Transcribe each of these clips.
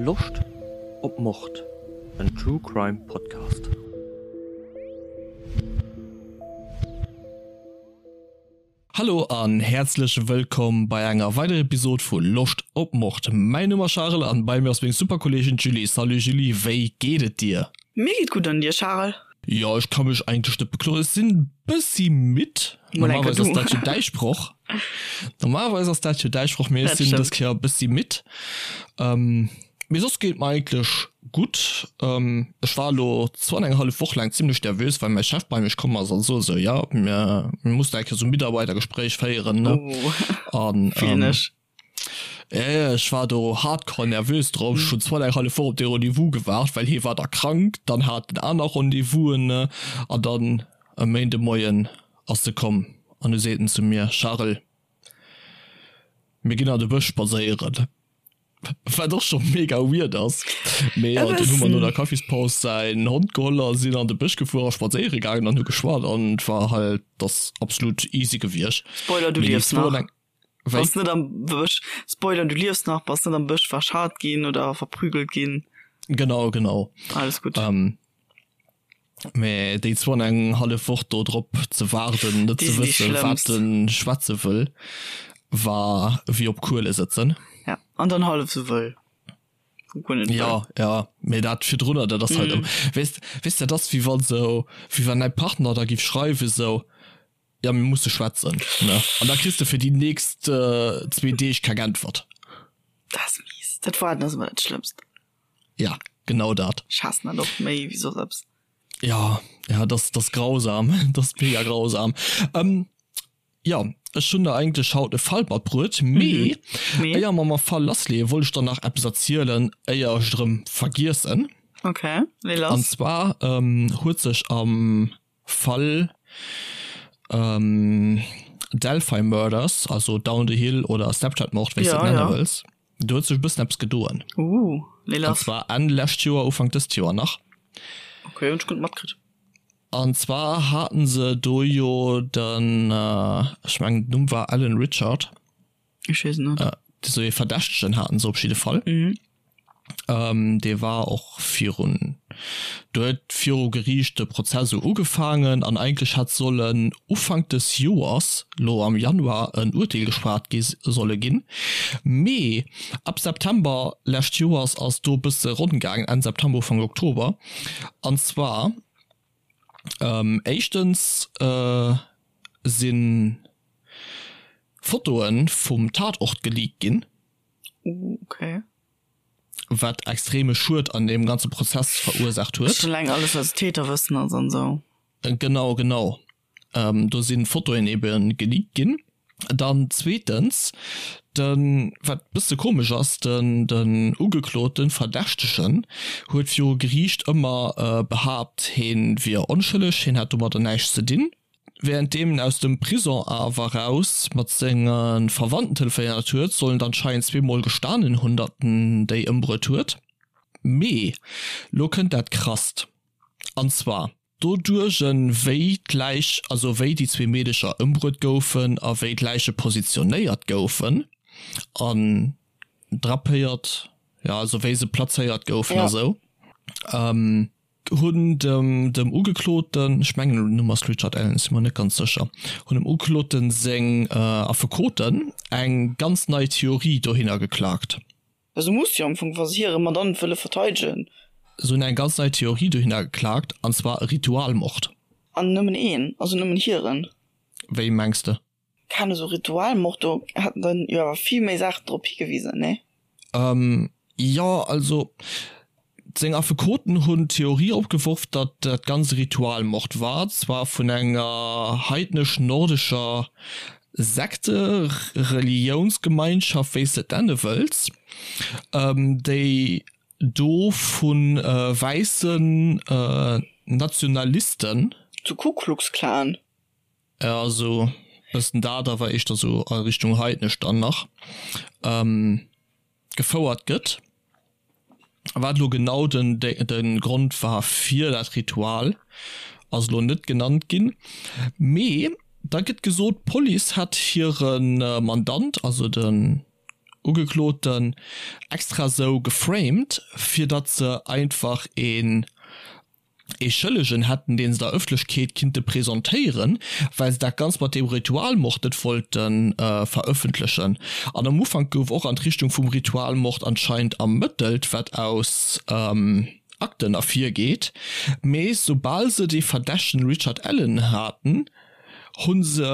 Loscht op Mord? En True Crime Podcast. Hallo an häerzlech wëllkomm bei enger weiderer Episode vu Loscht op Mord. Mäin Numm ass Charel an bei mir ass meng super Kolleegin d'Julie. Salut Julie, wéi geet et dir? Mir geet gutt an dir Charel? Jo ech ka mech eigentlech net bekloen. Ech sinn bëssi midd. Normalerweis ass dat jo däi Sproch. Normalerweis ass dat jo däi Sproch, mee ech sinn dës Kéier e bëssi midd. Mee soss geet et mer eigentlech gutt. Ech war elo zwou an eng hallef Woch laang zimlech nervös, well mäi Chef bei mech komm ass an sot esou, jo mir mussen eng Kéier esou e Mitarbeitergespréich féieren, ne. An ech war do hardcore nervös drop. Ech hunn zwou an eng hallef Woch op dee Rendez-vous gewaart, well hie war da krank, dann hat en aner Rendez-vousen, ne. An dann e Méindemoien ass e komm an du seet en zu mir, Charel, mir ginn an de Bësch spadséieren. Wat och scho mega weird ass. Mee jo, dunn hu mer no der Kaffispaus säin Hond geholl a sinn an de Bësch gefuer a spadséiere gaangen an hu geschwat an et war halt, ass absolut easy gewiescht. Spoiler, du liefs nach. Wéi? Bass net am Bësch. Spoiler, du liefs nach, bass net am Bësch verscharrt ginn oder verprügelt ginn. Genau, genau. Alles gutt. Mä déi zwou an eng hallef Woch do drop ze waarden, net ze wëssen, wat en schwätze wëll, war wéi op Kuele sëtzen. Ja, an dann hallef sou wëll. Ja, ja, mee dat virdrunner, dat ass halt, weess, weess, dat ass wéi wann sou, wéi wann däi Partner da giff schreiwen sou, ja mir musse schwätzen, ne, an da kriss de fir déi nächst zwee Deeg keng Äntwert. Dat ass mies. Dat Waarden ass ëmmer dat Schlëmmst. Ja, genau dat. Ech haassen dat och méi wéi soss eppes. Ja, ja, das, das grausam. Das mega grausam. Ähm, ja, ech hunn der eigentlech haut e Fall matbruet, mee mhm. mee éier mer mam Fall lassleeën, wollt ech der nach eppes erzielen, éier ech et erëm vergiessen. Okay, lee lass. An zwar ähm, huet sech am Fall ähm, Delphi Murders, also Down the Hill oder Snapchat-Mord, wéi s de et nenne wëlls, do huet sech e bëssen eppes gedoen. Uh, lee lass. An zwar Enn lescht Joer, Ufank dëst Joer nach. Okay, hunn ech guer net matkritt. An zwar haten se do jo den, ech mengen den Numm war Alan Richard. Ech weess et net. Esou ee Verdächtegen haten se op jidde Fall. Mhm. Ähm, dee war och virun, do huet viru Geriicht de Prozess esou ugefaangen an eigentlech hätt sollen Ufank des Joers, lo am Januar, en Urteel geschwat gi solle ginn. Mee ab September lescht Joers ass do e bësse ronn gaangen, Enn September, Ufank Oktober. An zwar, ähm, éischtens sinn Fotoe vum Tatort geleakt ginn. Okay. Wat extreme Schued an deem ganze Prozess verursaacht huet. Schon eleng alles wat Täterwëssen ass an sou. Genau, genau. Do si Fotoen ebe geleakt ginn. Dann zweetens, de wat bësse komesch ass, den den Ugekloten, Verdächtegen, huet viru Geriicht ëmmer behaapt, heen wier onschëlleg, heen hätt domadder näischt ze dinn. Wärenddeem en aus dem Prison awer raus mat senge Verwandten telefonéiert huet, soll en anscheinend zweemol gestanen hunn, datt en déi ëmbruet huet. Mee lo kënnt dat Krasst, an zwar doduerch wéi d'Läich, also wéi déi zwee Meedecher ëmbruet goufen a wéi d'Läiche positionéiert goufen an drapéiert, jo also wéi se plazéiert goufen a sou. Hunn dem dem Ugekloten, ech mengen den Numm ass Richard Allen, si mer net ganz sécher, hunn dem Ugekloten seng Affekoten eng ganz nei Theorie dohinner geklakt. Esou muss jo am Fong, wa se hire Mandant wëlle verteidegen. Se hunn eng ganz nei Theorie dohinner geklakt, an zwar e Ritualmord. An nëmmen een, also nëmmen hiren? Wéi mengs de? Keen esou Ritualmord, do hätten dann jo awer vill méi Saachen drop higewisen, nee? Ähm, jo, also seng Affekoten hunn d'Theorie opgeworf, datt dat Ganzt e Ritualmord war, zwar vun enger heidnesch-nordescher Sekte, Reliounsgemeinschaft, wéi s de et nenne wëlls, déi do vu wäissen Nationalisten. Zu Ku Klux Klan? Ja sou bëssen dat, awer éischter sou a Richtung heidnesch dann nach gefouert gëtt. Wat elo genau den de Grond war fir dat Ritual ass elo net genannt ginn, mee da gëtt gesot d'Police hätt hire Mandant, also den. Ugekloten extra sou geframed, fir datt se einfach een ee Schëllegen hätten, dee se der Ëffentlechkeet kinnte presentéieren, well se dat Ganzt mat deem Ritualmord net wollte verëffentlechen. An am Ufank gouf och an d'Richtung vum Ritualmord anscheinend ermëttelt, wat aus Akten ervirgeet, mee soubal se dee Verdächtegen Richard Allen haten, hu se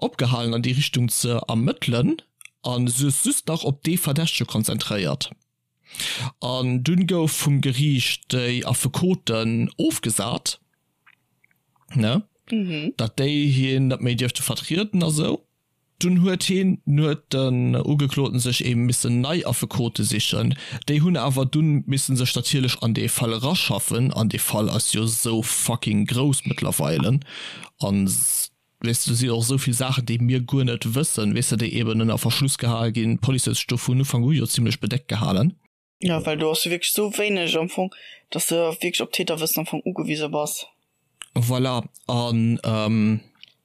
opgehalen an déi Richtung ze ermëttelen a sech just nach op dee Verdächtege konzentréiert. An dunn gouf vum Geriicht déi Affekoten ofgesat, ne, datt déi hien net méi dierfte vertrieden a sou. Dunn huet hien, huet den Ugekloten sech eben missen nei Affekote sichen. Déi hunn awer dunn missen sech natierlech an dee Fall eraschaffen, an dee Fall ass jo sou fucking grouss mëttlerweile an weess de, do si och esou vill Saachen, déi mir guer net wëssen, weess de, déi eben ënner Verschluss gehal ginn. D'Police huet sech do vun Ufank u jo zimlech bedeckt gehalen. Jo, well do ass jo wierklech esou wéineg am Fong, dass de wierklech op Täterwëssen am Fong ugewise bass. Voilà, an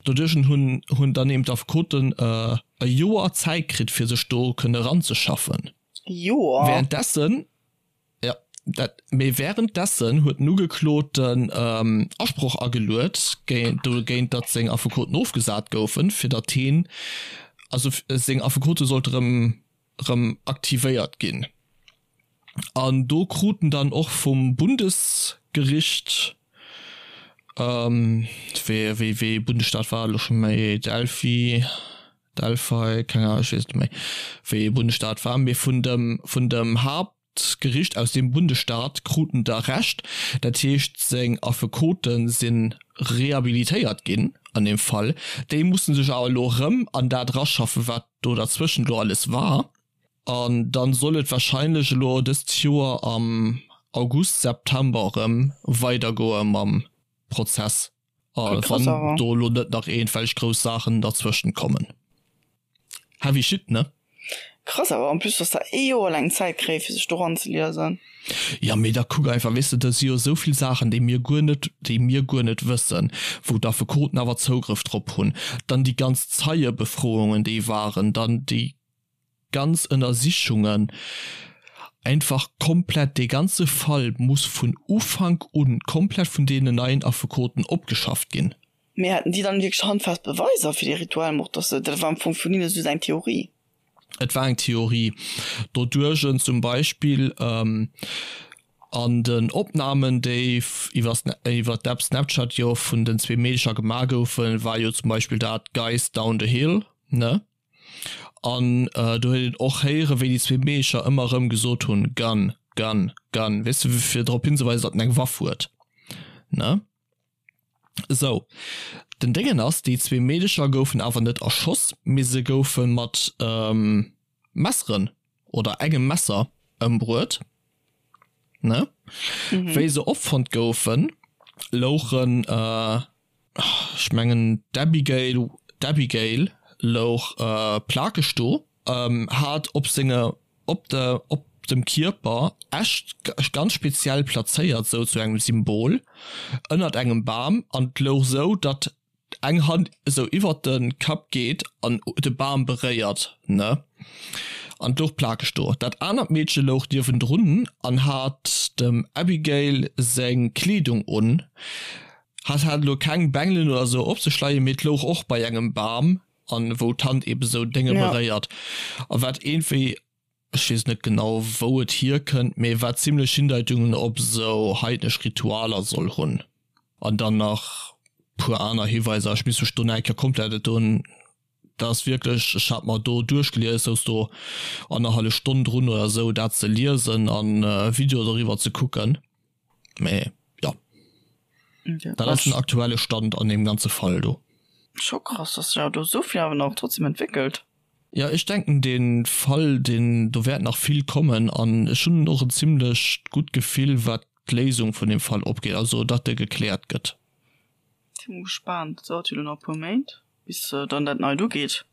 doduerch hunn hunn dann eben d'Affekoten e Joer Zäit kritt, fir sech do kënne eranzeschaffen. E Joer? Währenddessen Jo, dat, mee währenddessen huet den Ugekloten Asproch ageluet dogéint, datt seng Affekoten ofgesat goufen, fir datt heen, also seng Affekote sollte rëm rëm aktivéiert ginn. An do krut en dann och vum Bundesgericht, wéi wéi wéi Bundesstaat war et elo scho méi, Delphi, Delphi, keng Ahnung, ech weess et net méi, wéi ee Bundesstaat war, mee vun dem, vun dem Haaptgericht aus deem Bundesstaat krut en da Recht. Dat heescht, seng Affekote si rehabilitéiert ginn an deem Fall. Déi musse sech awer elo erëm an dat eraschaffen, wat do derzwëschent elo alles war. An dann soll et wahrscheinlech elo dëst Joer am August, September erëm weidergoe mam Prozess. A wann do elo net nach iergendwelch grouss Saachen derzwëschent kommen. Heavy shit, ne? Krass awer, en plus dass der ee Joer laang Zäit kréie fir sech do ranzeliesen. Jo, mee da kuck einfach, weess de, do si jo esou vill Saachen, déi mir guer net, déi mir guer net wëssen, wou d'Affekoten awer Zougrëff drop hunn. Dann déi ganz Zeiebefroungen, déi waren, dann déi ganz Ënnersichungen, einfach komplett, dee ganze Fall muss vun Ufank un komplett vun deenen neien Affekoten opgeschafft ginn. Mee haten déi dann wierklech handfest Beweiser fir dee Ritualmord, dass se, dat war am Fong vun hinne just eng Theorie? Et war eng Theorie. Doduerch zum Beispill an den Opnamen, déi iwwer d'App Snapchat jo vun den zwee Meedercher gemaach goufen, war jo zum Beispill dat Guys down the hill, ne? An do huet een och héieren, wéi déi zwee Meecher ëmmer erëm gesot hunn, Gun, gun, gun, weess de, fir drop hinzeweisen, datt en eng Waff huet, ne? Sou, den Déngen ass, déi zwee Meedecher goufen awer net erschoss, mee se goufe mat Messeren oder engem Messer ëmbruet, ne? Wéi se opfonnt goufen, louchen ech mengen d'Abigail, d'Abigail louch plakeg do, hat op senge, op de, op dem Kierper Äscht ganz speziell plazéiert, sou zu engem Symbol, ënnert engem Bam, an et louch sou, datt eng Hand esou iwwert de Kapp geet an de Bam beréiert, ne? An et louch plakeg do. Dat anert Meedche louch niewendrun an hat dem Abigail seng Kleedung un. Hat hat elo keng Bengelen oder sou op sech leien, mee et louch och bei engem Bam an wou d'Hand eben sou Dénge beréiert. A wat iergendwéi, ech weess net genau wou et hierkënnt, mee wat zimlech Hindeitungen op sou heidnesch Ritualer soll hunn. An dann nach puer aner Hiweiser, ech misst mech do nach eng Kéier komplett et doen, dat ass wierklech, ech hat mer do duerchgelies, souz do annerhallef Stonn drun oder sou dat ze liesen an Video doriwwer ze kucken. Mee jo, dat ass den aktuelle Stand an deem ganze Fall do. Scho krass, dass sech awer do esou vill awer nach trotzdem entwéckelt. Jo, ech denken dee Fall, deen, do wäert nach vill kommen an ech hunn och en zimlech gutt Gefill wat d'Léisung vun deem Fall opgeet, also datt e gekläert gëtt. Si mol gespaant, et dauert jo elo nach e puer Méint bis dann dat neit ugeet.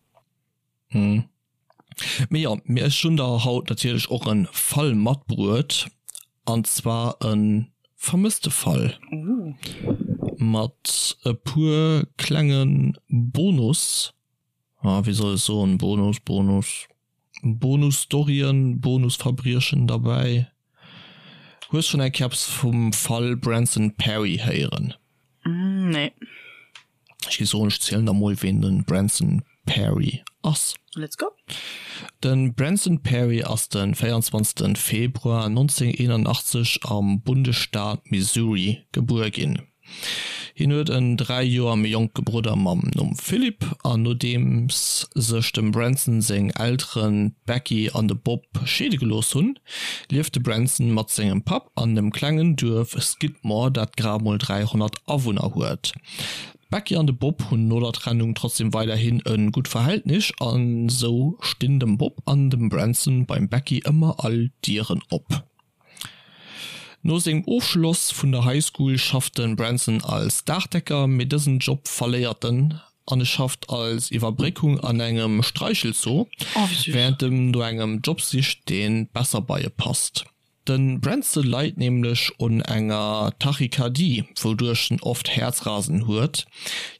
Hm. Mee jo, mee ech hunn der haut natierlech och en Fall matbruet, an zwar en vermësste Fall. Ooh. Mat e puer klenge Bonus, ah wéi soll ech soen, Bonus, Bonus. Bonus-Storyen, Bonus-Verbriechen derbäi. Hues schonn eng Kéier eppes vum Fall Branson Perry héieren? Nee. Ech géif soen, ech zielen der mol ween de Branson Perry ass. Let's go! De Branson Perry ass de 24 Februar 1981 am Bundesstaat Missouri gebuer ginn. Hien huet en 3 Joer méi jonke Brudder mam Numm Philip an nodeems sech dem Branson seng Elteren d'Becky an de Bob scheede gelooss hunn, lieft de Branson mat sengem Papp an dem klengen Duerf Skidmore, dat grad mol 300 Awunner huet. D'Becky an de Bob hunn no der Trennung trotzdem weiderhin e gutt Verhältnis an sou stinn dem Bob an dem Branson beim Becky ëmmer all Dieren op. No sengem Ofschloss vun der High School schafft de Branson als Daachdecker, mee dësen Job verléiert en an e schafft als Iwwerbréckung an engem Streichelzoo, wärend em no engem Job sicht, dee besser bei e passt. De Branson leit nämlech un enger Tachykardie, wouduerch en oft Häerzrasen huet.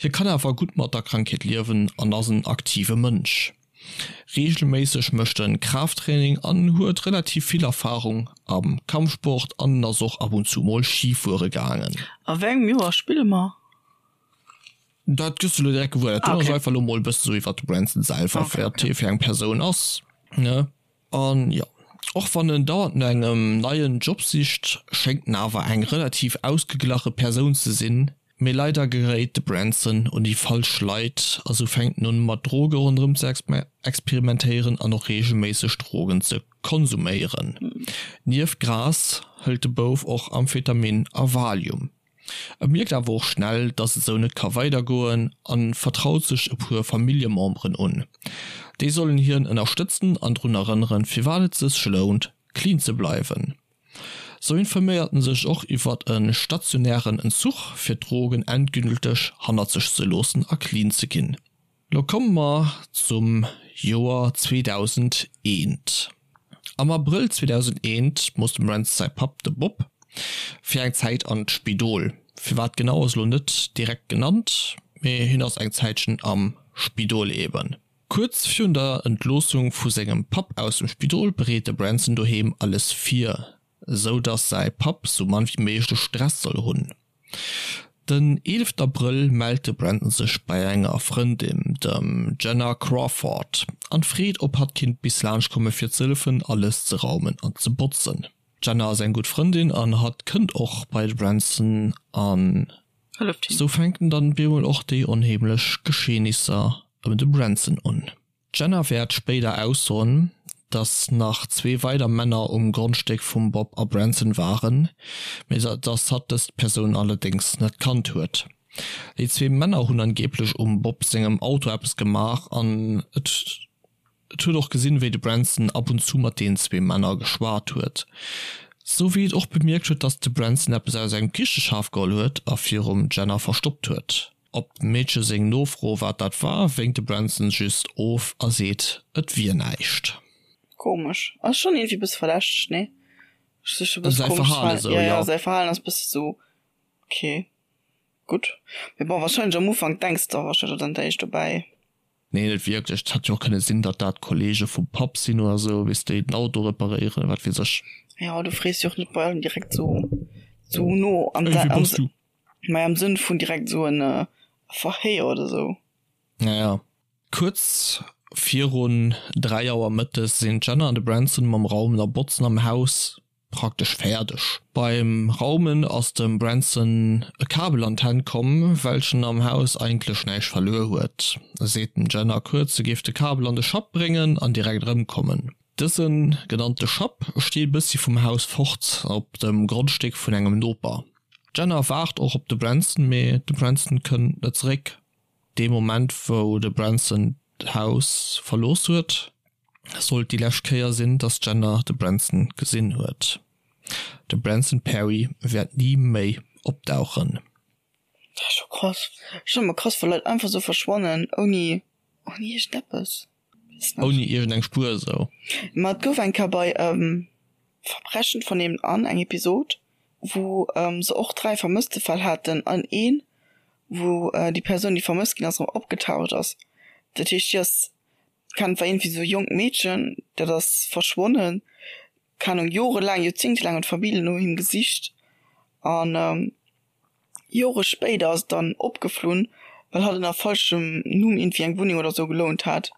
Hie kann awer gutt mat der Krankheet liewen an ass en aktive Mënsch. Reegelméisseg mécht en Kraafttraining an huet relativ vill Erfarung am Kampfsport an en ass och ab und zu mol Ski fuere gaangen. A wéi engem Joer spille mer? Dat gëss du lo direkt gewuer. Dat do ass einfach lo mol e bëssen esou iwwert de Branson selwer, wat hie fir eng Persoun ass, ne? An jo, och wann en dauernd no engem neien Job sicht, schéngt en awer eng relativ ausgeglache Persoun ze sinn. Mee leider geréit de Branson un déi falsch Leit a sou fänkt en un mat Droge ronderëm ze experimentéieren an och reegelméisseg Drogen ze konsuméieren. Nieft Gras hëlt de Bouf och Amphetamin a Valium. E mierkt awer och schnell, dass et sou net ka weidergoen a vertraut sech e puer Familljememberen un. Déi sollen hien ënnerstëtzen an drun erënneren, firwat et sech lount, clean ze bleiwen. Sou informéiert en sech och iwwert e stationären Entzuch, fir d'Drogen endgülteg hannert sech ze loossen a clean ze ginn. Lo komme mer zum Joer 2001. Am Abrëll 2001 muss dem Rance säi Papp, de Bob, fir eng Zäit an d'Spidol. Firwat genau ass lo net direkt genannt, mee hien ass eng Zäitchen am Spidol eben. Kuerz virun der Entloossung vu sengem Papp aus dem Spidol bereet de Branson doheem alles vir, sou dass säi Papp sou mann wéi méiglech Stress soll hunn. Den 11 Abrëll mellt de Brandon sech bei enger Frëndin, dem Jenna Crawford, an freet ob hatt kinnt bis laanscht komme fir ze hëllefen alles ze raumen an ze botzen. D'Jenna ass eng gutt Frëndin an hatt kënnt och bei de Branson an Hëlleft him. Sou fänken dann bemol och déi onheemlech Geschehnisser ëm de Branson un. D'Jenna wäert spéider aussoen, dass nach zwee weider Männer um Grondstéck vum Bob a Branson waren, mee dass hatt dës Persoun allerdéngs net kannt huet. Déi zwee Männer hunn angeeblech um Bob sengem Auto eppes gemaach an et Et huet och gesinn, wéi de Branson ab und zu mat deenen zwee Männer geschwat huet. Sou wéi et och bemierkt huet, dass de Branson eppes aus engem Kicheschaf geholl huet a virum Jenna verstoppt huet. Op dem Meedche seng Nofro, wat dat war, wénkt de Branson just of a seet, et wier näischt. Komesch. Ass schonn iergendwéi bësse verdächteg, nee? Säi Verhalen esou, jo. Ja, säi Verhalen ass bësse sou, ok, gutt. Mee bon, warscheinlech am Ufank denks de warscheinlech och dann d'éischt dobäi. Nee, net wierklech. Et hätt jo och kënne sinn, datt dat Kollege vum Papp sinn oder sou, weess déi den Auto reparéieren, wat weess ech. Jo, du frees jo och net bei allem direkt sou, sou no an Ey, wie bass du? Mei am Sënn vun direkt sou en Verhéier oder sou. Ja, ja. Kuerz virun 3 Auer mëttes sinn d'Jenna an de Branson mam Raumen a Botzen am Haus praktesch fäerdeg. Beim Raumen ass dem Branson e Kabel an d'Hänn komm, welchen am Haus eigentlech näischt verluer huet. E seet dem Jenna kuerz, se géif de Kabel an de Schapp bréngen an direkt erëmkommen. Dëse genannte Schapp steet e bëssi vum Haus fort op dem Grondstéck vun engem Noper. D'Jenna waart och op de Branson, mee de Branson kënnt net zeréck. Dee Moment wou de Branson d'Haus verlooss huet, sollt déi lescht Kéier sinn, dass d'Jenna de Branson gesinn huet. De Branson Perry wäert ni méi opdauchen. Dat ass scho krass. Ech fannen emmer krass wa Leit einfach sou verschwannen ouni ouni iergendeppes. Weess net. Ouni iergendeng Spuer esou. Ma et gouf eng Kéier bei Verbrechen von nebenan eng Episod wou se och 3 Vermësstefäll haten an een wou déi Persoun déi vermësst ginn ass erëm opgetaucht ass. Dat heescht déi ass. Kann war irgendwie sou jonkt Meedchen, dat ass verschwonnen, keng Ahnung, jorelaang, joerzéngtelaang huet d'Famill no him gesicht an Jore spéider ass et dann opgeflunn, well hatt ënner falschem Numm iergendwéi eng Wunneng oder sou gelount hat.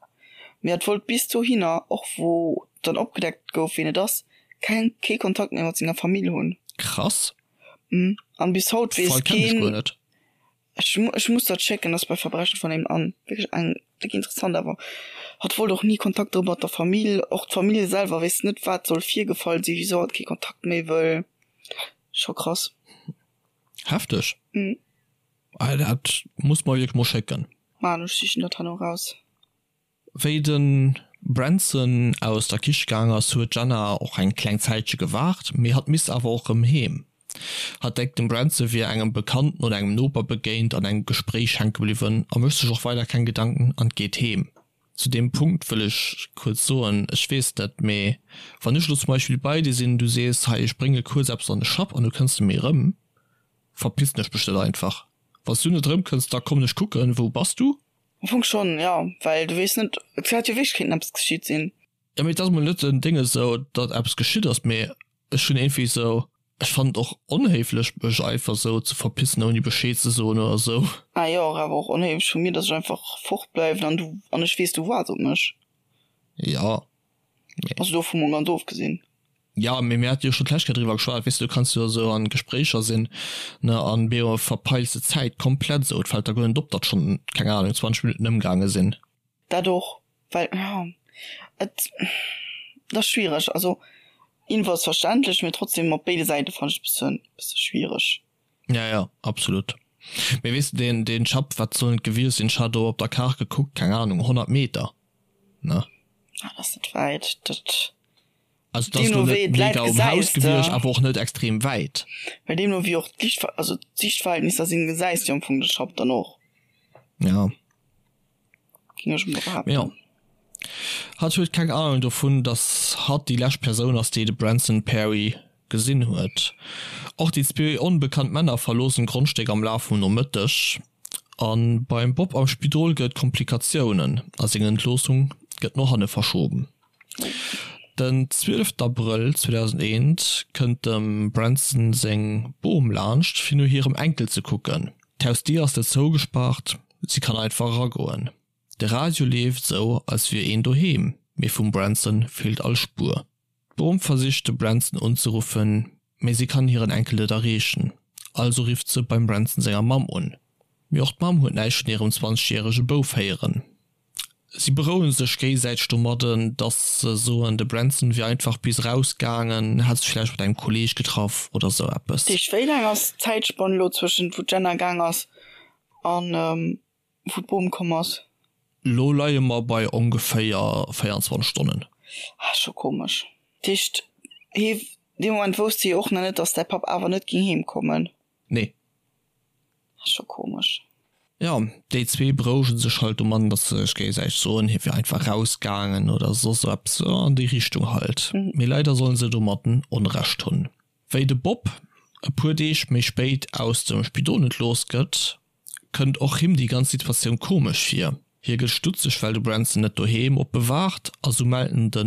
Mee hatt wollt bis dohinner, och wou dann opgedeckt gouf wien et ass, keng kee Kontakt méi mat senger Famill hunn. Krass. An bis haut weess keen. Ech ech muss dat schécken, ass bei Verbrechen von nebenan wierklech eng déck interessant awer hatt wollt och ni Kontakt drop mat der Famill, och d'Famill selwer weess net wat soll virgefall sinn, wisou hatt kee Kontakt méi wëll, scho krass. Hefteg. Mhm. Ah, dat muss mer wierklech mol schécken. Maan, ech sichen dat herno raus. Wéi de Branson aus der Kiche gaang ass, huet d'Jenna och eng kleng Zäitche gewaart, mee hatt misst awer och rëm heem. Hatt denkt, dem Branson wier engem Bekannten oder engem Noper begéint, an engem Gespréich hänke bliwwen a mécht sech och weider keng Gedanken an geet heem. Zu deem Punkt wëll ech kuerz soen, ech weess net, mee wann ech elo zum Beispill bei dir sinn, du sees, hei ech brénge kuerz eppes an de Schapp an du kënns net méi erëm, verpissen ech mech net einfach. Wann s du net erëmkënns, da kommen ech kucken, wou bass du? Am Fong schonn, jo, well du weess net, et hätt jo wierklech kéinten eppes geschitt sinn. Jo, mee et ass mol net den Ding esou, datt eppes geschitt ass, mee ech hunn iergendwéi esou, ech fannen et och onhéiflech mech einfach esou ze verpissen ouni Bescheed ze soen oder esou. Ah jo, awer och onhéiflech vu mir, datt ech einfach fort bleiwen an du, an ech weess du waarts op mech. Jo, mee. Also dovu mol ganz ofgesinn. Jo, mee mir hate jo scho d'lescht Kéier driwwer geschwat, weess de, du kanns jo esou an Gespréicher sinn, ne, an beo verpeils de d'Zäit komplett esou, et fält der guer net op, datt schonn, keng Ahnung, 20 Minutten ëmgaange sinn. Dat och, well jo, et et ass schwiereg. Also irgendwou ass verständlech, mee trotzdem op béide Säite fannen ech et bëssen bësse schwiereg. Ja, ja, absolut. Mee weess de, deen deen Schapp, wat sollen et gewiescht sinn, ech hat do op der Kaart gekuckt, keng Ahnung, 100 Meter, ne? Ah, dat ass net wäit, dat. Also dat ass lo net mega um Haus gewiescht, awer och net extrem wäit. Well deemno wéi och d'Liicht, also d'Siichtverhältnisser sinn, gesäis de am Fong de Schapp dann och. Ja. Ging ech mol behaapten. Jo. Hatt huet keng Ahnung dovun, dass hatt déi lescht Persoun ass, déi de Branson Perry gesinn huet. Och déi zwee onbekannt Männer verloossen d'Grondstéck am Laf vum Nomëtteg. A beim Bob am Spidol gëtt et Komplikatiounen a seng Entloossung gëtt no hanne verschoben. Den 12 Abrëll 2001 kënnt dem Branson seng Bom laanscht fir no hirem Enkel ze kucken. D'Hausdier ass net zougespaart, si kann einfach eragoen. De Radio leeft esou als wier een doheem, mee vum Branson feelt all Spuer. D'Bom versicht de Branson unzeruffen, mee si kann hiren Enkel net erreechen, also rifft se beim Branson senger Mamm un. Mee och d'Mamm huet näischt vun hirem 20 järege Bouf héieren. Si berouege sech géisäiteg domadden, datt se soen, de Branson wier einfach bis eraus gaangen, hätt sech vläicht mat engem Kolleeg getraff oder sou eppes. Deeg, wéi laang ass d'Zäitspann elo zwëschent wou d'Jenna gaang ass an wou d'Bom komm ass? Lo leie mer bei ongeféier 24 Stonnen. Ah, scho komesch. Dat heescht, hee, dee Moment wousst hie och nach net, datt däi Papp awer net géing heem kommen? Nee. Ass scho komesch. Jo, déi zwee berouegen sech halt domatten, dass se sech géigesäiteg soen, hie wier einfach rausgaangen oder soss esou eppes an déi Richtung halt. Mee leider sollen se domatten Onrecht hunn. Wéi de Bob e puer Deeg méi spéit aus dem Spidol entlooss gëtt, kënnt och him déi ganz Situatioun komesch vir. Hie gëtt stutzeg, well de Branson net doheem op e waart a sou mellt en de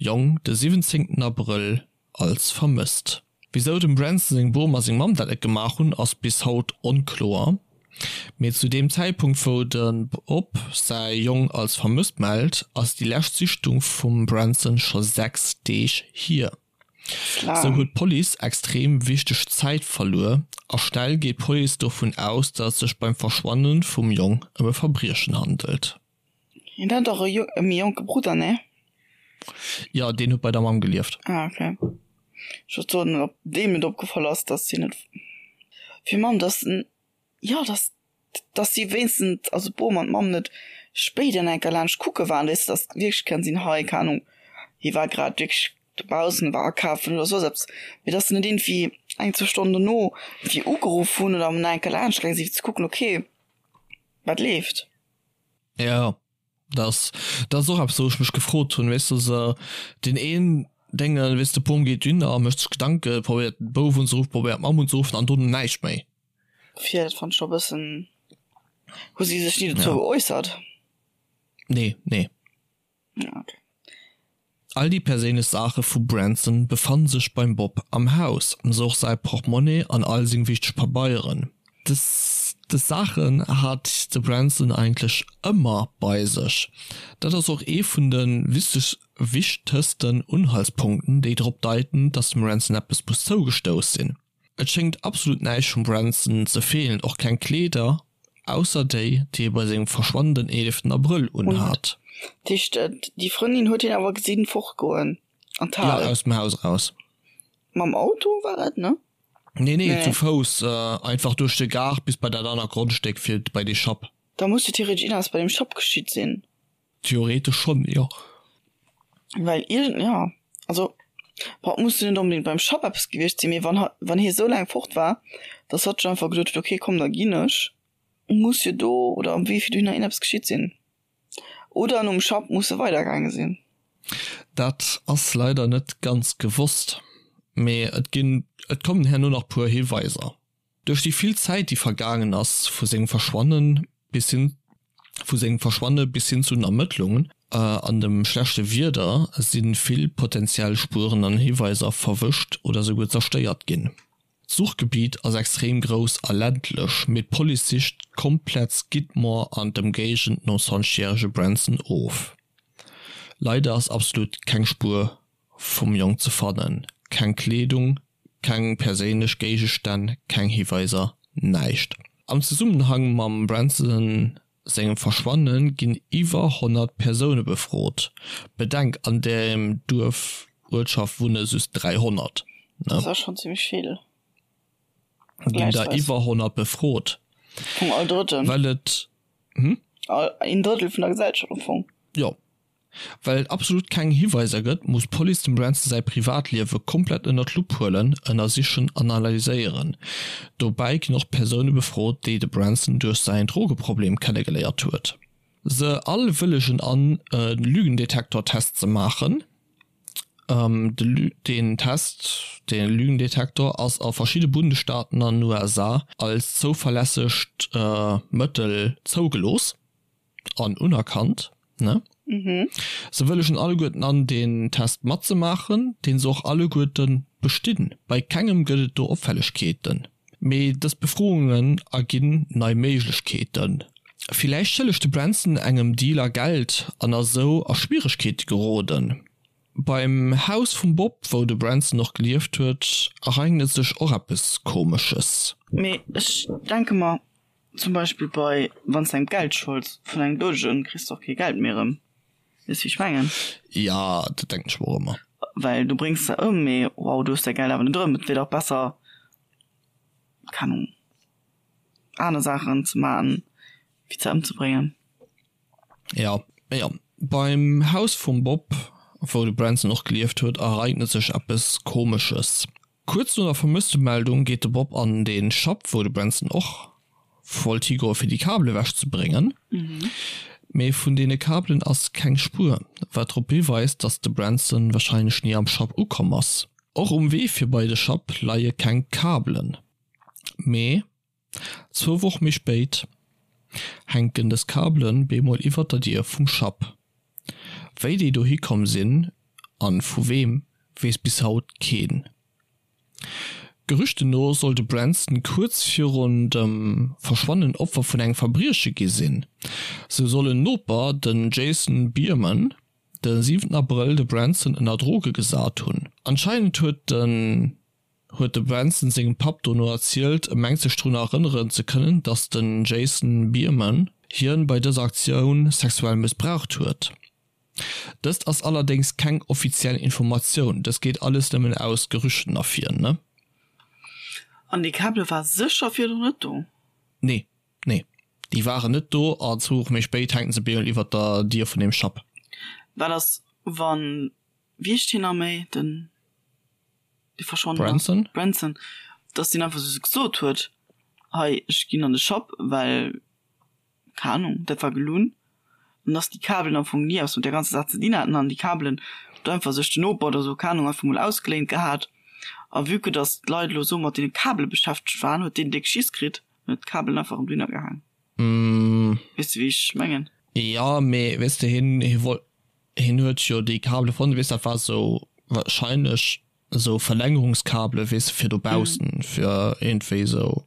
Jong de 17 Abrëll als vermësst. Wisou dem Branson seng Bom a seng Mamm dat net gemaach hunn, ass bis haut onkloer. Mee zu deem Zäitpunkt wou de Bob säi Jong als vermësst mellt, ass déi lescht Sichtung vum Branson scho 6 Deeg hier. Sou huet d'Police extrem wichteg Zäit verluer a schnell geet d'Police dovun aus, datt et sech beim Verschwanne vum Jong ëm e Verbriechen handelt. Hien hat dach e méi jonke Brudder, nee? Jo, deen huet bei der Mamm gelieft. Ah, okay. Ech wollt soen, ob deem et opgefall ass, dass hien net fir Mamm, dass en, jo, dass, dass si wéinstens, also d'Bom an d'Mamm net spéider nach eng Kéier laanscht kucke waren, weess de, dass wierklech kann sinn, hei, keng Ahnung, hie war grad wierklech dobaussen, war akafen oder soss eppes, mee dass se net iergendwéi eng, zwou Stonnen dono iergendwéi ugeruff hunn oder nach eng Kéier laanscht gaange sinn, fir ze kucken, okay, wat leeft. Ja, das, das ass och eppes, wou ech mech gefrot hunn, weess de, se deen een Déngen, weess de, Bom geet dunn a mécht sech Gedanken, probéiert de Bouf unzeruffen, probéiert d'Mamm unzeruffen an dono näischt méi. Fir dat fannt ech scho e bëssen, hu si sech ni dozou geäussert? Nee, nee. Ja, okay. All déi perséinlech Saache vu Branson befanne sech beim Bob am Haus, sou och säi Portmonnaie an all seng wichteg Pabeieren. Des Saachen hat de Branson eigentlech ëmmer bei sech. Dat ass och ee vun de wichtegsten Unhaltspunkten, déi drop deiten, dass dem Branson eppes muss zougestouss sinn. Et schéngt absolut näischt vum Branson ze feelen, och keng Kleeder, ausser déi, déi e bei sengem Verschwannen den 11 Abrëll unhat. Dat heescht, déi Frëndin huet hien awer gesinn fortgoen an d'Hal? Jo, aus dem Haus eraus. Mam Auto war et, ne? Nee, nee, zu Fouss, einfach duerch de Gaart bis bei dat anert Grondstéck fir bei dee Schapp. Da muss jo theoretesch iergendeppes bei deem Schapp geschitt sinn. Theoretesch schonn, jo. Well iergend, jo, also bon, et muss jo net onbedéngt beim Schapp eppes gewiescht sinn, mee wann ha, wann hie sou laang fort war, dass hatt sech einfach geduet huet, okay, komm, da ginn ech, muss jo do oder am Wee fir dohinner iergendeppes geschitt sinn. Oder nom Schapp muss e weidergaange sinn. Dat ass leider net ganz gewosst, mee et ginn, et kommen herno nach puer Hiweiser. Duerch déi vill Zäit déi vergaangen ass vu sengem Verschwanne bis hin vu sengem Verschwanne bis hin zu den Ermëttlungen an dem schlechte Wieder si vill potentiell Spueren an Hiweiser verwëscht oder souguer zerstéiert ginn. D'Suchgebitt ass extrem grouss a ländlech, mee d'Police sicht komplett Skidmore an d'Ëmgéigend nom 20 järege Branson of. Leider ass absolut keng Spuer vum Jong ze fannen, keng Kleedung, keng perséinlech Géigestänn, keng Hiweiser, näischt. Am Zesummenhang mam Branson sengem Verschwanne ginn iwwer 100 Persoune befrot. Bedenk, an deem Duerf, Uertschaft wunne just 300, ne? Dat ass schonn zimmlech vill. Ginn der iwwer 100 befrot. Vum all Drëtten. Well et, hm? Een Drëttel vun der Gesellschaft am Fong. Jo. Well et absolut keng Hiweiser gëtt, muss d'Police dem Branson säi Privatliewe komplett ënner d'Lupp huelen, ënnersichen an analyséieren. Dobäi ginn och Persoune befrot, déi de Branson duerch säin Drogeproblem kennegeléiert huet. Se all wëllegen an, e Lügendetektor-Test ze maachen. Deen Test, de Lügendetektor, ass a verschidde Bundesstaaten an den USA als zouverlässegt Mëttel zougelooss. an unerkannt, ne? Mhm. Se wëllegen alleguerten an, deen Test matzemaachen, deen se och alleguerten bestinn. Bei kengem gëtt et do Opfällegkeeten. Mee dës Befroungen erginn nei Méiglechkeeten. Villäicht schëllegt de Branson engem Dealer Geld an ass esou a Schwieregkeete geroden. Beim Haus vum Bob, wou de Branson och gelieft huet, ereignet sech och eppes Komesches. Mee ech denke mer, Zum Beispill bei wann s de engem Geld scholds vun engem Doudegen, kriss de och kee Geld méi erëm. Weess wéi ech mengen? Ja, dat denken ech mer och ëmmer. Well du bréngs se ëm, mee wow, du hues däi Geld awer net erëm. Et wier dach besser, keng Ahnung, aner Saachen ze maachen, wéi se ëmzebréngen. Ja, jo. Beim Haus vum Bob, wou de Branson och gelieft huet, ereignet sech eppes Komesches. Kuerz no der Vermësstemeldung geet de Bob an de Schapp, wou de Branson och wollt higoe fir déi Kabel ewech ze bréngen. Mee vun deene Kabelen ass keng Spuer, wat drop hiweist, datt de Branson warscheinlech ni am Schapp ukomm ass. Och um Wee fir bei de Schapp leie keng Kabelen. Mee Zwou Woch méi spéit hänken dës Kabelen bemol iwwert der Dier vum Schapp. Wéi déi dohi komm sinn an vu weem, weess bis haut keen. Gerüchten no soll de Branson kuerz virun dem Verschwannen Opfer vun engem Verbrieche gi sinn. Sou soll en Noper, den Jason Biermann, de 7 Abrëll de Branson ënner Droge gesat hunn. Anscheinend huet den huet de Branson sengem Papp dono erzielt, e mengt sech drun erënneren ze kënnen, datt den Jason Biermann hien bei dëser Aktioun sexuell mëssbraucht huet. Dëst ass allerdéngs keng offiziell Informatioun, dëst geet alles nëmmen aus Gerüchten ervir, ne? An déi Kabele war sécher virdrun net do? Nee, nee, déi waren net do an zwou Woche méi spéit hänken se bemol iwwert der Dier vun deem Schapp. Wat ass wann, wéi heescht hien nach méi, den. dee verschwonnen ass, Branson? Branson, dass deen einfach sou gesot huet, hei ech ginn an de Shop, well, keng Ahnung, dat war gelunn, an dass déi Kabelen am Fong ni eppes mat där ganzer Saach ze dinn haten an déi Kabelen huet einfach sech den Noper oder sou, keng Ahnung, einfach mol ausgeléint gehat a vue que dass d'Leit elo sou mat deene Kabele beschäftegt waren, huet deen déck Schiss kritt an huet d'Kabelen einfach erëm dohinner gehaang. Mm. Weess de wéi ech mengen? Jo, mee weess de, hien, hie wollt. Hien huet jo déi Kabele fonnt, weess dat war sou wahrscheinlech esou Verlängerungskabele weess de fir dobaussen fir iergendwéi esou